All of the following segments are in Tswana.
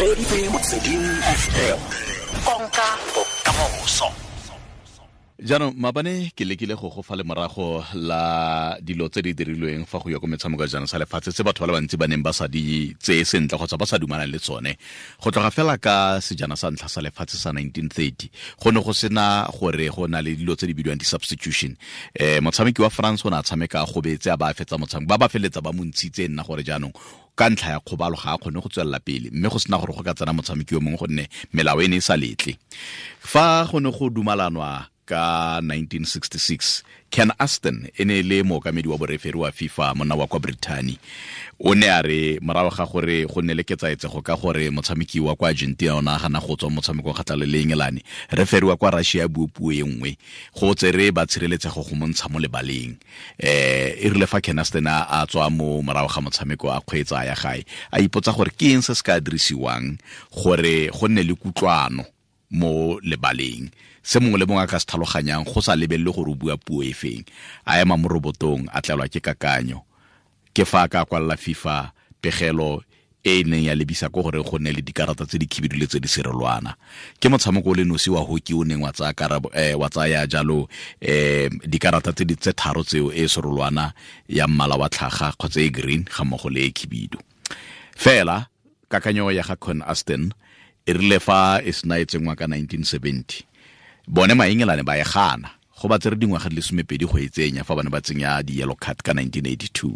Reditse Motsweding FM. Konka bokamoso. Jaanong maabane ke lekile go go fa lemorago la dilo tse di dirilweng fa go ya ko metshameko ya jaanong sa lefatshe tse batho ba le bantsi ba neng ba sa di tseye sentle kgotsa ba sa dumalane le tsone. Go tloga fela ka sejana sa ntlha sa lefatshe sa 1930 go ne go sena gore go na le dilo tse di bidiwang di-substitution. Motshameki wa France o ne a tshameka a gobetse, a ba a fetsa motshameko, ba ba feleletsa ba mo ntshitse nna gore jaanong ka ntlha ya kgobalo ga a kgone go tswelela pele, mme go sena gore go ka tsena motshameki yo mongwe gonne melao e ne e sa letle. Fa go ne go dumalanwa ka 1966, Ken Aston e ne e le mookamedi wa boreferi wa FIFA, monna wa kwa Brittany, o ne a re morago ga gore go nne le ketsaetsego ka gore motshameki wa kwa Argentina o ne a gana go tswa motshamekong kgatlhanong le Engelane, referi wa kwa Russia a bue puo e nngwe go tsere ba tshireletsego go montsha mo lebaleng. E rile fa Ken Aston a tswa mo morago ga motshameko a kgweetsa ya gae, a ipotsa gore ke eng se se ka dirisiwang gore go nne le kutlwano mo lebaleng, se mongwe le mongwe a ka se tlhaloganyang go sa lebelele gore o bua puo e feng. A ema mo robotong, a tlelwa ke kakanyo. Ke fa a ka kwalela FIFA pegelo e e neng ya lebisa ko gore go nne le dikarata tse di khibidu le tse di serolwana. Ke motshameko o le nosi wa hockey o neng wa tsaya karabo, wa tsaya jalo, dikarata tse di tse tharo tseo, e serolwana ya mmala wa tlhaga kgotsa e green ga mmogo le e khibidu. Fela kakanyo ya ga Ken Aston e rile fa e sena e tsenngwa ka 1970, bone Maengelane ba e gana, go ba tsere dingwaga di le 12 go e tsenya fa bane ba tsenya di-yellow card ka 1982.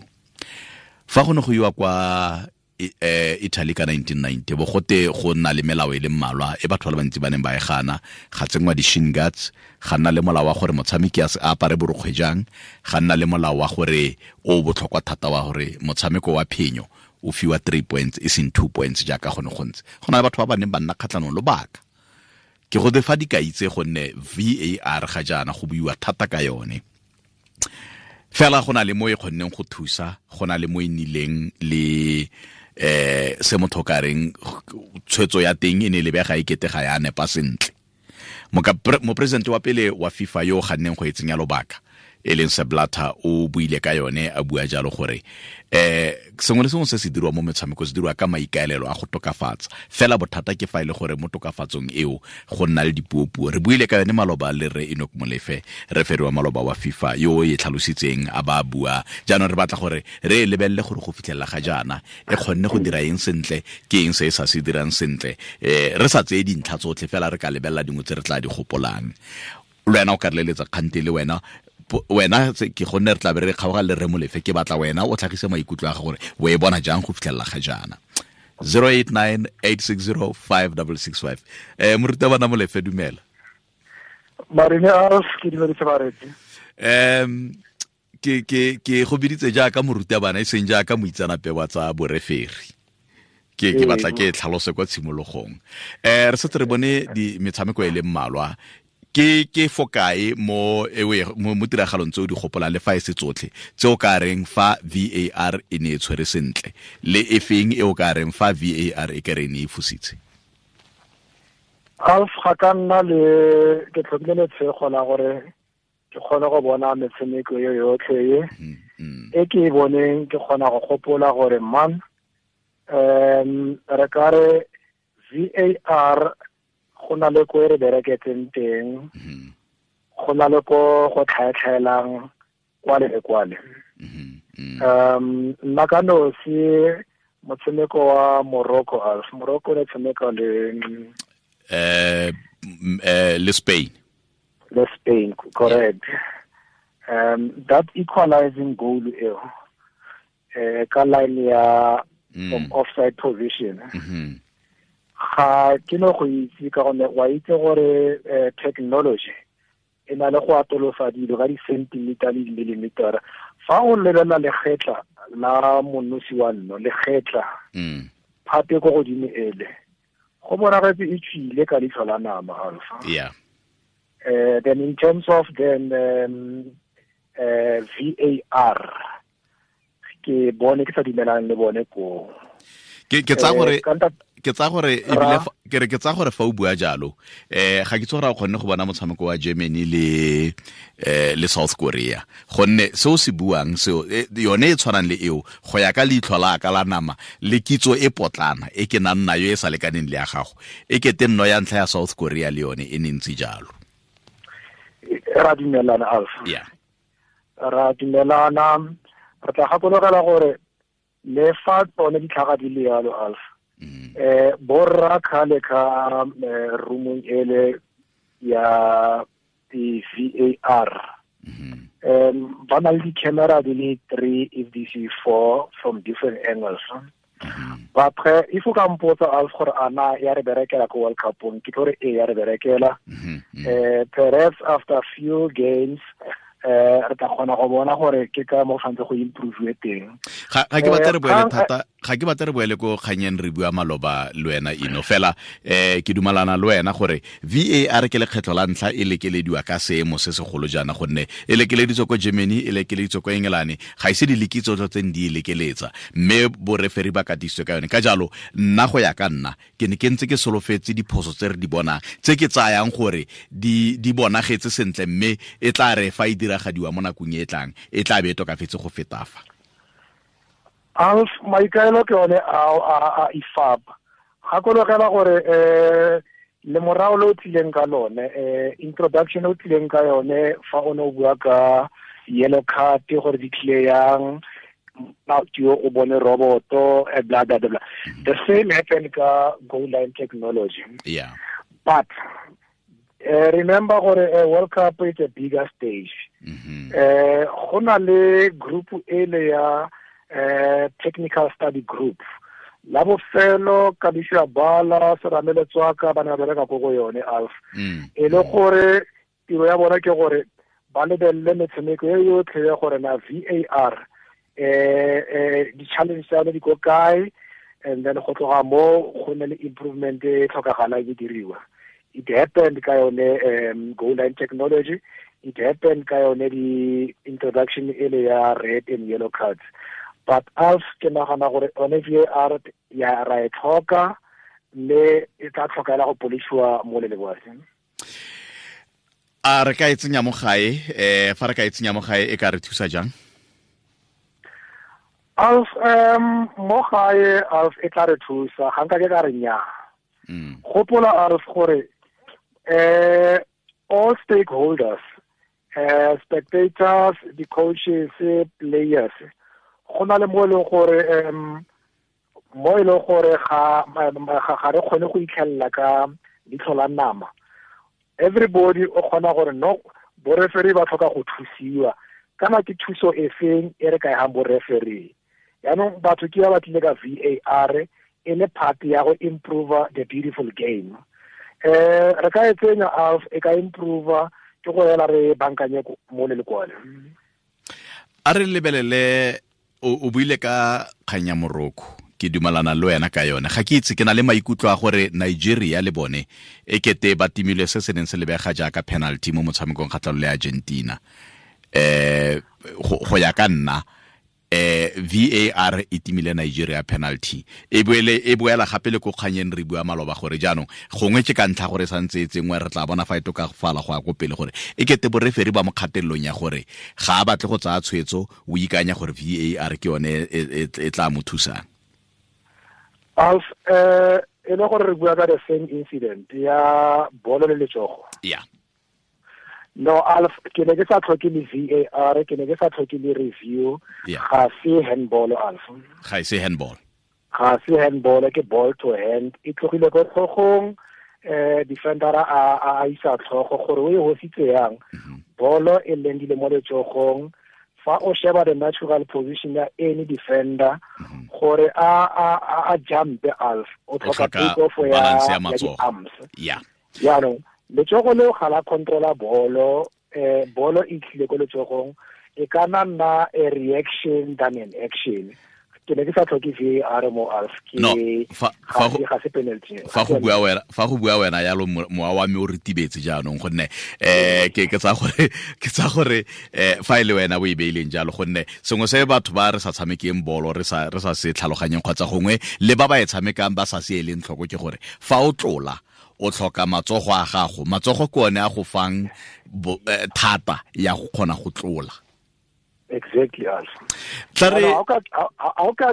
Fa go ne go iwa kwa Italy ka 1990, bo gote go nna le melao e le mmalwa e batho ba le bantsi ba neng ba e gana. Ga tsenngwa di-shin guards, ga nna le molao wa gore motshameki a se apare borokgwe jang, ga nna le molao wa gore o botlhokwa thata wa gore motshameko wa phenyo o fiwa 3 points e seng 2 points jaaka go ne go ntse. Go na le batho ba ba neng ba nna kgatlhanong lobaka. Ke go fa dikai tse gonne VAR ga jaana go buiwa thata ka yone. Fela go na le mo e kgonneng go thusa, go na le mo e nnileng le se motho ka reng tshwetso ya teng e ne e lebega e kete ga ya nepa sentle. Mopresidente wa pele wa FIFA yo o ganneng go e tsenya lobaka, e leng Sepp Blatter, o buile ka yone a bua jalo gore sengwe le sengwe se se dirwa mo metshameko se dirwa ka maikaelelo a go tokafatsa. Fela bothata ke fa e le gore mo tokafatsong eo go nna le dipuopuo. Re buile ka yone maloba le Rre Enoch Molefe, referi wa maloba wa FIFA yo o e tlhalositseng a ba bua. Jaanong re batla gore re e lebelele gore go fitlhelela ga jaana e kgonne go dira eng sentle, ke eng se e sa se dirang sentle. Re sa tseye dintlha tsotlhe fela, re ka lebelela dingwe tse re tla di gopolang. Le wena o ka re leletsa kgante le wena, wena ke gonne re tla be re kgaoga le Rre Molefe, ke batla wena o tlhagise maikutlo a gago gore o e bona jang go fitlhelela ga jaana. 089 860 5665. Morutabana Molefe, dumela. Marine Alf, ke dumedise bareetsi. Ke go biditse jaaka morutabana e seng jaaka moitseanape wa tsa boreferi. Ke batla ke tlhalose kwa tshimologong. Re setse re bone di metshameko e le mmalwa. Ke fokae mo ewe mo tiragalong tse o di gopolang le fa e se tsotlhe tse o ka reng fa VAR e ne e tshwere sentle, le e feng e o ka reng fa VAR e kere e ne e fositse? Alf, ga ka nna le ke tlhokile letshego la gore ke kgone go bona metshameko e yotlhe e. E ke e boneng, ke kgona go gopola gore man, re ka re VAR go na le ko e re bereketseng teng, go na le ko go tlhaetlhaelang kwale le kwale. Nna ka nosi motshameko wa Morocco, Alf, Morocco ne tshameka le Le Spain. Le Spain, correct. That equalizing goal eo, ka line ya from offside position. Ga ke no go itse ka gonne wa itse gore technology e na le go atolosa dilo ka di-centimeter le di-millimeter. Fa o lebelela legetla la monosi wa nno, legetla phate ko godimo ele, go bonagetse e tswile ka leitlho la nama, Alpha. Then in terms of then VAR, ke bone ke sa dumelang le bone ko. Ke tsa gore Ke tsa gore ebile ke re ke tsa gore fa o bua jalo, ga ke tse gore a kgonne go bona motshameko wa Germany le South Korea, gonne seo se buang seo yone e tshwanang le eo go ya ka leitlho la ka la nama le kitso e potlana e ke nang nayo e sa lekaneng le ya gago, e kete nno ya ntlha ya South Korea le yone e ne ntse jalo. Ra dumelana, Alf. Yeah. Ra dumelana. Re tla gakologela gore le fa tsone ditlhaga di le yalo, Alf, borra khale ka roomong ele ya di VAR, ba na le di-camera di le 3 if this is 4 from different angles. But if o ka mpotsa, Alf, gore ana ya re berekela ko World Cupong, ke tlo re e ya re berekela. Perhaps after few games re tla kgona go bona gore ke ka mo tshwanetse go improve teng. Ga ke batle re boele thata, ga ke batle re boele ko kganyeng re bua maloba le wena Ino, fela ke dumalana le wena gore VAR ke lekgetlho la ntlha e lekelediwa ka seemo se segolo jaana, gonne e lekeleditswe ko Germany, e lekeleditswe ko England, ga ise di lekitso tse di e lekeletsa, mme boreferi ba katisitswe ka yone. Ka jalo nna go ya ka nna ke ne ke ntse ke solofetse diphoso tse re di bonang, tse ke tsayang gore di bonagetse sentle, mme e tla re fa e diragadiwa mo nakong e tlang e tla be e tokafetse go feta fa. Alf, maikaelo ke one a IFAB. Gakologela gore le morao le o tlileng ka lone, introduction o tlileng ka yone fa o ne o bua ka yellow card gore di tlile yang, o bone roboto, blah blah blah. The same happened ka goal line technology. Yeah. But remember gore World Cup is a bigger stage. Go na le group ele ya technical study group. La bofelo Kabisha Bala Seramele Tswaka ba ne ba bereka ko go yone, Alf. E le gore tiro ya bona ke gore ba lebelele metshameko e yotlhe ya gore na VAR di-challenge tsa yone di ko kae, and then go tloga mo go ne le improvement e tlhokagalang e diriwa. It happened ka yone goal line technology, it happened ka yone di-introduction ele ya red and yellow cards. But Alf, ke nagana gore one VAR ya ra e tlhoka, mme e tla tlhokela go polisiwa mo le leboase. A re ka e tsenya mo gae, fa re ka e tsenya mo gae e ka re thusa jang? Alf, mo gae, Alf, e tla re thusa, ga nka ke ka re nnyaa. Gopola, Alf, gore all stakeholders, spectators, the coaches, players, go na le mo e leng gore mo e leng gore ga re kgone go itlhelela ka leitlho la nama. Everybody o kgona gore no, boreferi ba tlhoka go thusiwa, kana ke thuso e feng e re ka e hang boreferi. Yaanong batho ke ba ba tlile ka VAR e le part ya go improve the beautiful game. Re ka e tsenya, Alf, e ka improve, ke go ela re bankanye mo le lekwale. A re lebelele, o buile ka kgang ya Morocco, ke dumalana le wena ka yone. Ga ke itse, ke na le maikutlo a gore Nigeria le bone e kete ba timile se se neng se lebega jaaka penalty mo motshamekong kgatlhanong le Argentina. Go ya ka nna, VAR e timile Nigeria penalty. E boela gape le ko kganyeng re bua maloba gore jaanong gongwe ke ka ntlha gore santse e tsengwe, re tla bona fa e tokafala go ya ko pele gore e kete boreferi ba mo kgatelelong ya gore ga a batle go tsaya tshwetso, o ikanya gore VAR ke yone e tla mo thusang. Alf, e le gore re bua ka the same incident ya bolo le letsogo. Yeah. No, Alf, ke ne ke sa tlhoke le VAR, ke ne ke sa tlhoke le review. Ga se handball, Alf. Ga se handball. Ga se handball, ke ball to hand. E tlogile ko tlhogong, defender a isa tlhogo gore o e hositse yang. Bolo e lendile mo letsogong. Fa o sheba the natural position ya any defender, gore a jump, Alf, o tlhoka take off ya arms. Yeah. Jaanong letsogo leo ga la controla bolo, bolo e tlile ko letsogong, e ka nna a reaction than an action. Ke ne ke sa tlhoke VAR mo Alf, ke No, ga se penalty. Fa go bua wena yalo, mowa wa me o ritibetse jaanong, gonne ke tsa gore fa e le wena o e beileng jalo, gonne sengwe se batho ba re sa tshamekeng bolo re sa se tlhaloganyeng kgotsa gongwe le ba ba e tshamekang ba sa se eleng tlhoko, ke gore fa o tlola o tlhoka matsogo a gago. Matsogo ke one a go fang thata ya go kgona go tlola. Exactly, Alf. A ka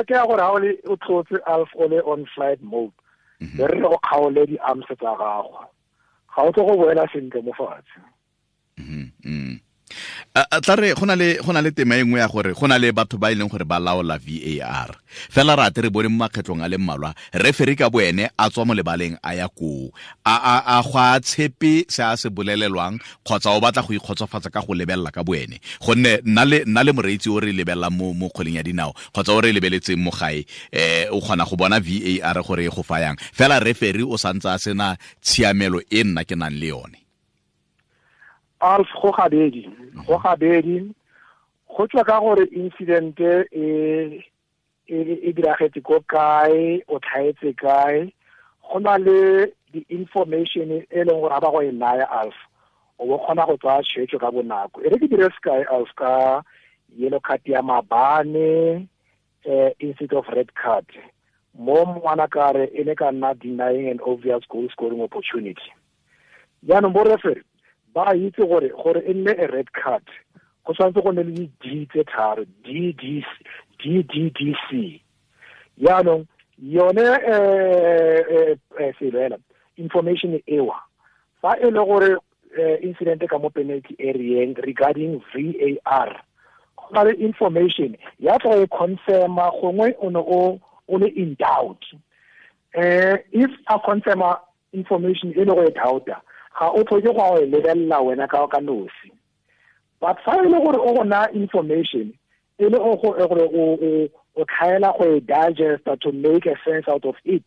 ke gore ha o le o tlotse, Alf, o le on flight mode, be re go kgaole di-arms tsa gago, ga o tlo go boela sentle mo fatshe. Tla re go na le tema e nngwe ya gore go na le batho ba e leng gore ba laola VAR. Fela ra ate re bone mo makgetlong a le mmalwa referee ka boene a tswa mo lebaleng a ya koo, a go a tshepe se a se bolelelwang kgotsa o batla go ikgotsofatsa ka go lebelela ka boene, gonne nna le moreetsi o re lebelelang mo kgweleng ya dinao kgotsa o re lebeletseng mo gae, o kgona go bona VAR gore e go fayang, fela referee o santse a sena tshiamelo e nna ke nang le yone. Alf, go gabedi, go tswa ka gore incident e diragetse ko kae, o tlhaetse kae. Go na le di-information e leng gore ga ba go e naya, Alf, o bo kgona go tsaya tshwetso ka bonako. E re ke dire sekai, Alf, ka yellow card ya mabane, instead of red card. Mo ngwana kare e ne ka nna denying an obvious goal scoring opportunity. Jaanong bo referee ba itse gore e nne a red card, go tshwanetse go nne le di-D tse tharo, D D D C. Jaanong yone selo ela information ewa, fa e le gore incident ka mo penalty area regarding VAR, go na le information ya tla e confirma gongwe o ne o le in doubt. If a confirma information e le go e doubta, ga o tlhoke go e lebelela wena ka nosi. But fa e le gore o go na information e le gore o tlhaela go e digesta to make a sense out of it,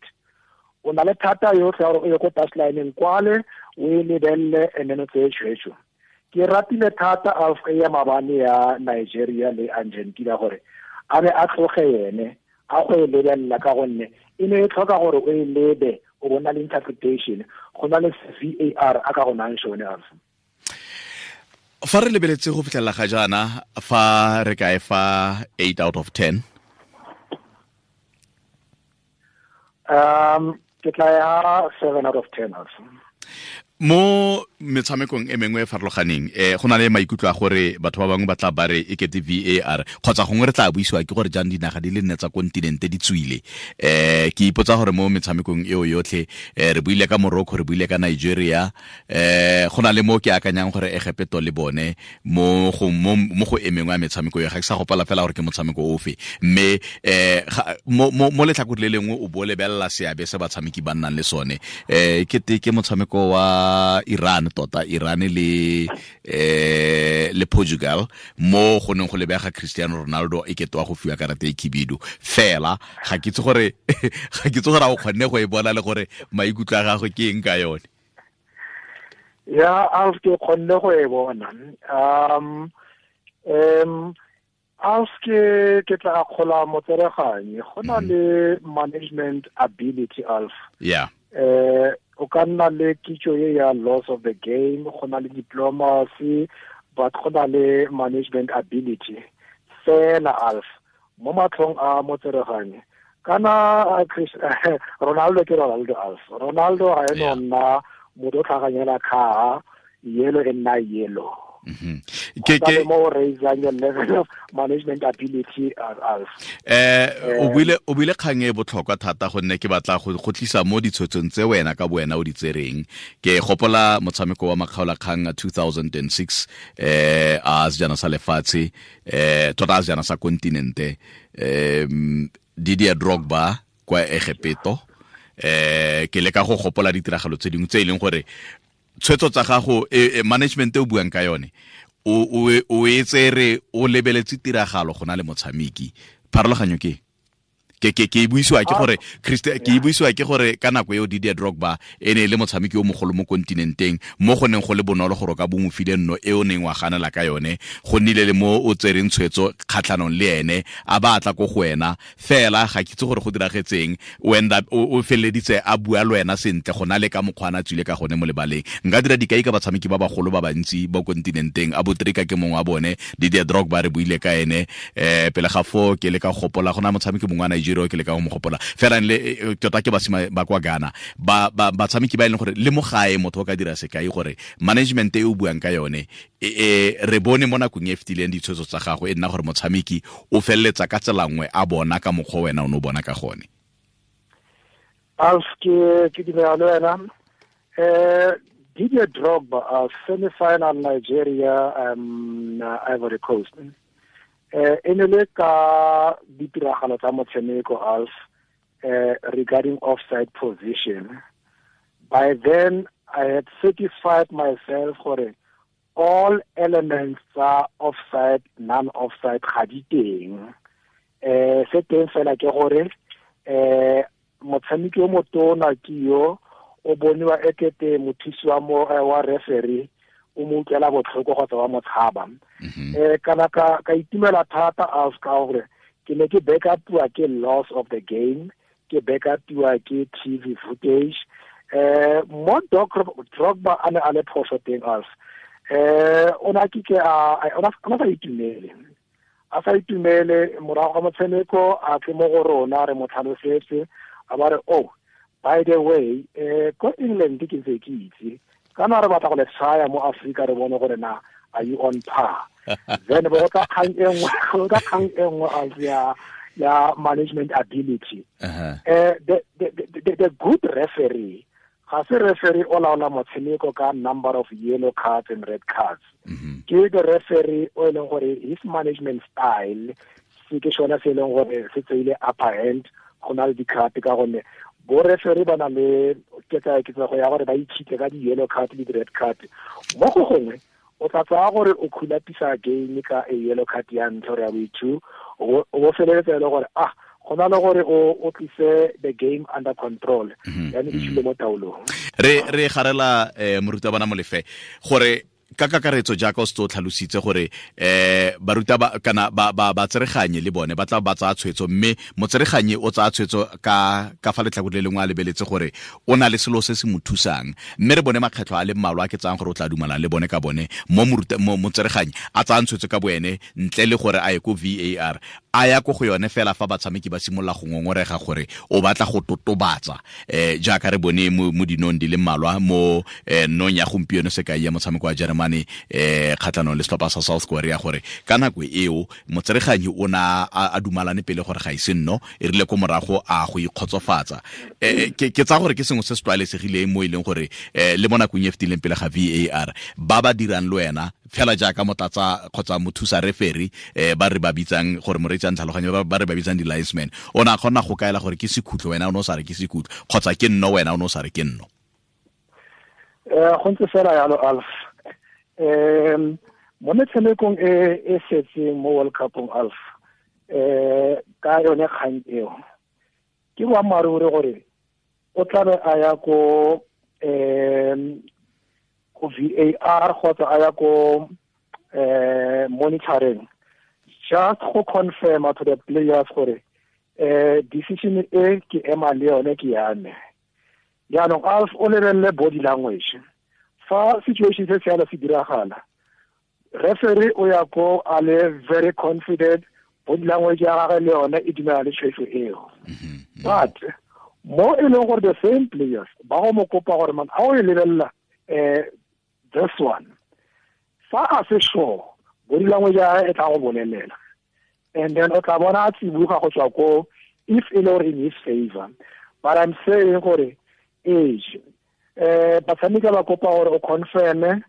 o na le thata yotlhe ya gore o ye ko touchline kwale o e lebelele and then o tseye tshwetso. Ke ratile thata Alf ya mabane ya Nigeria le Argentina gore a be a tloge yene a go e lebelela, ka gonne e ne e tlhoka gore o e lebe, o bona le interpretation, go na le VAR a ka go nang sone. Alf, fa re lebeletse go fitlhelela ga jaana, fa re ka e fa 8 out of 10? Ke tla ya 7 out of 10, Alf. Mo metshamekong e mengwe e farologaneng, go na le maikutlo a gore batho ba bangwe ba tla ba re e kete VAR kgotsa gongwe re tla buisiwa ke gore jang dinaga di le nne tsa kontinente di tswile. Ke ipotsa gore mo metshamekong eo yotlhe, re buile ka Morocco, re buile ka Nigeria, go na le mo ke akanyang gore Egepeto le bone mo go e mengwe ya metshameko eo, ga ke sa gopola fela gore ke motshameko ofe, mme mo letlhakore le lengwe o bo lebelela seabe se batshameki ba nnang le sone. Ke motshameko wa Iran, tota Iran le Portugal, mo go neng go lebega Cristiano Ronaldo e ketwa go fiwa karata e khibidu. Fela ga ke itse gore a o kgonne go e bona le gore maikutlo a gagwe ke eng ka yone. Ya, Alf, ke kgonne go e bona. Alf, ke tla akgola motsereganyi. Go na le management ability, Alf. Yeah. O ka nna le kitso e ya loss of the game, go na le diplomacy, but go na le management ability. Fela, Alf, mo matlhong a motsereganyi, kana Ronaldo ke Ronaldo, Alf. Ronaldo ga eno nna motho o tlhaganyela khaa, yellow e nna yellow. Ke mo raising your level of management ability, Alf. O buile kgang e botlhokwa thata, gonne ke batla go tlisa mo ditshwetsong tse wena ka boena o di tsereng. Ke gopola motshameko wa makgaolakgang a 2006, a sejana sa lefatshe, tota a sejana sa kontinente, Didier Drogba kwa Egepeto. Ke leka go gopola ditiragalo tse dingwe tse e leng gore tshwetso tsa gago, management e o buang ka yone, o e tsere o lebeletse tiragalo go na le motshameki. Pharologanyo ke Ke buisiwa ke gore Christian ke buisiwa ke gore ka nako eo Didier Drogba e ne le motshameki o mogolo mo kontinenteng mo go neng go le bonolo gore ka bo mo file nno e o neng wa ganela ka yone go nnile le mo o tsereng tshwetso kgatlhanong le ene a ba tla ko go wena fela ga ke itse gore go diragetseng o end up o feleditse a bua le wena sentle go na le ka mokgwa a tswile ka gone mo lebaleng. Nka dira dikai ka batshameki ba bagolo ba bantsi ba kontinenteng a Botrika ke mongwe wa bone, Didier Drogba re buile ka ene pele ga fo ke le ka gopola go na motshameki mongwe wa Nigeria ke le ka go mo gopola fela le tota ke basima ba kwa Ghana ba batshameki ba e leng gore le mo gae motho o ka dira sekai gore management e o buang ka yone re bone mo nakong e fetileng ditshwetso tsa gago e nna gore motshameki o feleletsa ka tsela nngwe a bona ka mokgwa wena o ne o bona ka gone. Alf ke dumela le wena. Didier Drogba semi-final Nigeria Ivory Coast e ne le ka ditiragalo tsa motshameko Alf regarding offside position. By then I had certified myself gore all elements tsa offside, non-offside ga di teng. Se teng fela ke gore motshameki o motona ke yo o boniwa ekete mothusi wa mo wa referee o mo utlwela botlhoko kgotsa wa motshaba. Kana ka itumela thata Alf ka gore ke ne ke backupiwa ke loss of the game, ke backupiwa ke TV footage. Mo Drogba a ne a le phoso teng Alf. O na ke a o na sa itumele. A sa itumele morago ga motshameko a tle mo go rona re mo tlhalosetse a ba re oh by the way ko England ke ntse ke itse kana re batla go le tshaya mo Africa re bone gore na are you on par. Then bo ka kgang e nngwe as ya management ability. The good referee ga se referee o laola motshameko ka number of yellow cards and red cards. Ke the referee o e leng gore his management style se ke sona se e leng gore se tseile upper hand go na le di-card ka gonne bo referee ba na le ketsaetsego ya gore ba itshitse ka di-yellow card le di-red card. Mo go gongwe o tla tsaya gore o khulapisa game ka a yellow card ya ntlha gore ya bo-two o bo feleletsa e le gore go na le gore o tlise the game under control yani e tshile mo taolong. Re garela morutabana Molefe gore ka kakaretso jaaka o se o tlhalositse gore baruta ba kana ba tsereganye le bone ba tla ba tsaya tshwetso mme motsereganye o tsaya tshwetso ka fa letlhakore le lengwe a lebeletse gore o na le selo se se mo thusang mme re bone makgetlho a le mmalwa a ke tsayang gore o tla dumalang le bone ka bone mo motsereganye a tsayang tshwetso ka boene ntle le gore a ye ko VAR a ya ko go yone fela fa batshameki ba simolola go ngongorega gore o batla go totobatsa jaaka re bone mo dinong di le mmalwa mo nong ya gompieno sekai ya motshameko wa Germany kgatlhanong le setlhopha sa South Korea gore ka nako eo motsereganyi o na a dumalane pele gore ga ise nno e rile ko morago a go ikgotsofatsa. Ke tsaya gore ke sengwe se se tlwaelesegileng mo e leng gore le mo nakong e fetileng pele ga VAR ba ba dirang le wena fela jaaka motlatsa kgotsa mothusa referee ba re ba bitsang gore moreetsi a ntlhaloganyo ba re ba bitsang di-linesman o ne a kgona go kaela gore ke sekhutlo wena o ne o sa re ke sekhutlo kgotsa ke nno wena o ne o sa re ke nno. Go ntse fela yalo Alf. Mo metshamekong e setseng mo World Cupong Alf ka yone kgang eo ke boammaaruri gore o tlabe a ya ko ko VAR kgotsa a ya ko monitoring just go confirm to the players gore decision e ke ema le yone ke ya me. Jaanong Alf o lebelele body language fa situation se se se diragala referee o ya ko a le very confident body language ya gagwe le yone e dumela le tshwetso eo. But mo e leng gore the same players ba go mo kopa gore man a o e lebelela this one fa a se sure body language ya gagwe e tla go bolelela and then o tla bona a tsibuga go tswa ko if e le gore in his favor. But I'm saying gore age batshameki ba kopa gore o confirm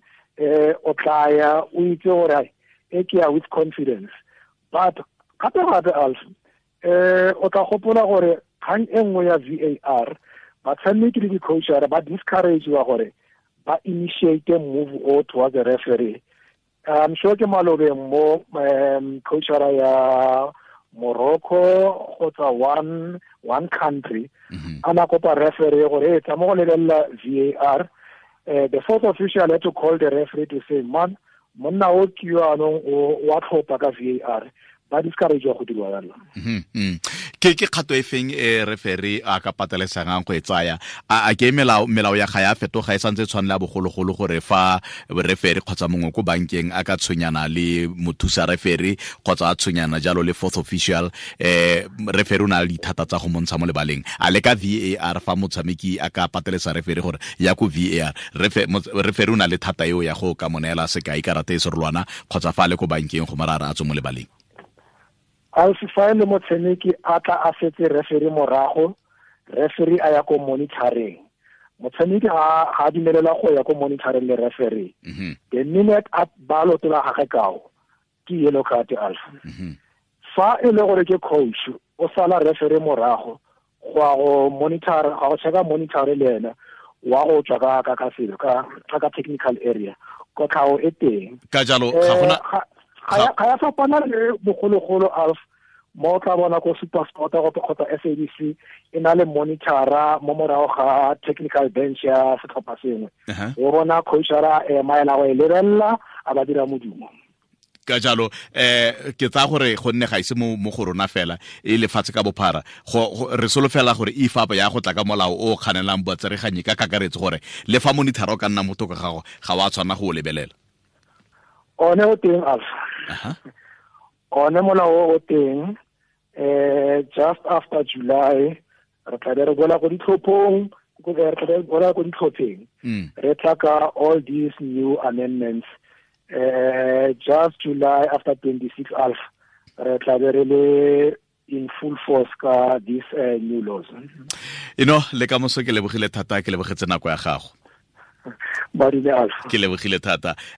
o tla ya o itse gore e ke ya with confidence. But gape gape Alf o tla gopola gore kgang e nngwe ya VAR batshameki le di-coachara ba discourageiwa gore ba initiate move o towards the referee. I'm sure ke malobeng mo coachara ya Morocco kgotsa one country a na kopa referee gore e tla mo go lebelela VAR. The fourth official had to call the referee to say, man, monna o ke yo anong o wa tlhopha ka VAR. Ba discourage go dirwa jalo. Ke kgato e feng e referee a ka patelesegang go e tsaya? A ke melao ya ga ya fetoga e santse tshwanela bogologolo gore fa referee kgotsa mongwe ko bankeng a ka tshwenyana le mothusa referee kgotsa a tshwenyana jalo le fourth official, referee o na le dithata tsa go montsha mo lebaleng. A le ka VAR fa motshameki a ka patelesa referee gore ya ko VAR, referee o na le thata eo ya go ka mo neela sekai karata e serolwana kgotsa fa a le ko bankeng go mara a tswe mo lebaleng. Alfi, fa le motshameki a tla a setse referee morago, referee a ya ko monitoring. Motshameki ga a dumelela go ya ko monitoring le referee. The minute a ba lotola gagwe kao, ke yellow card, Alfi. Fa e le gore ke coach, o sala referee morago go ya go monitor, ga go checka monitor le ena, wa go tswa ka ka selo, ka technical area. Kotlhao e teng. Ka jalo, ga gona ga ya fapana le bogologolo, Alf, mo tla bona ko SuperSport kgotsa SABC e na le monitora mo morago ga technical bench ya setlhopha sengwe. O bona coachara ema ela go e lebelela a ba dira modumo. Ka jalo, ke tsaya gore gonne ga ise mo go rona fela e lefatshe ka bophara, re solofela gore IFAB ya go tla ka molao o kganelang botsereganyi ka kakaretso gore le fa monitor o ka nna motho ka gago ga wa tshwana go o lebelela. One o teng, Alf. One molao o teng, just after July re tla be re boela ko ditlhophong, re tla be re boela ko ditlhopheng. Re tla ka all these new amendments. Just July after 26, Alf, re tla be re le in full force ka these new laws. Ino le ka moso ke lebogile thata, ke lebogetse nako ya gago. Badile, Alf. Ke lebogile thata.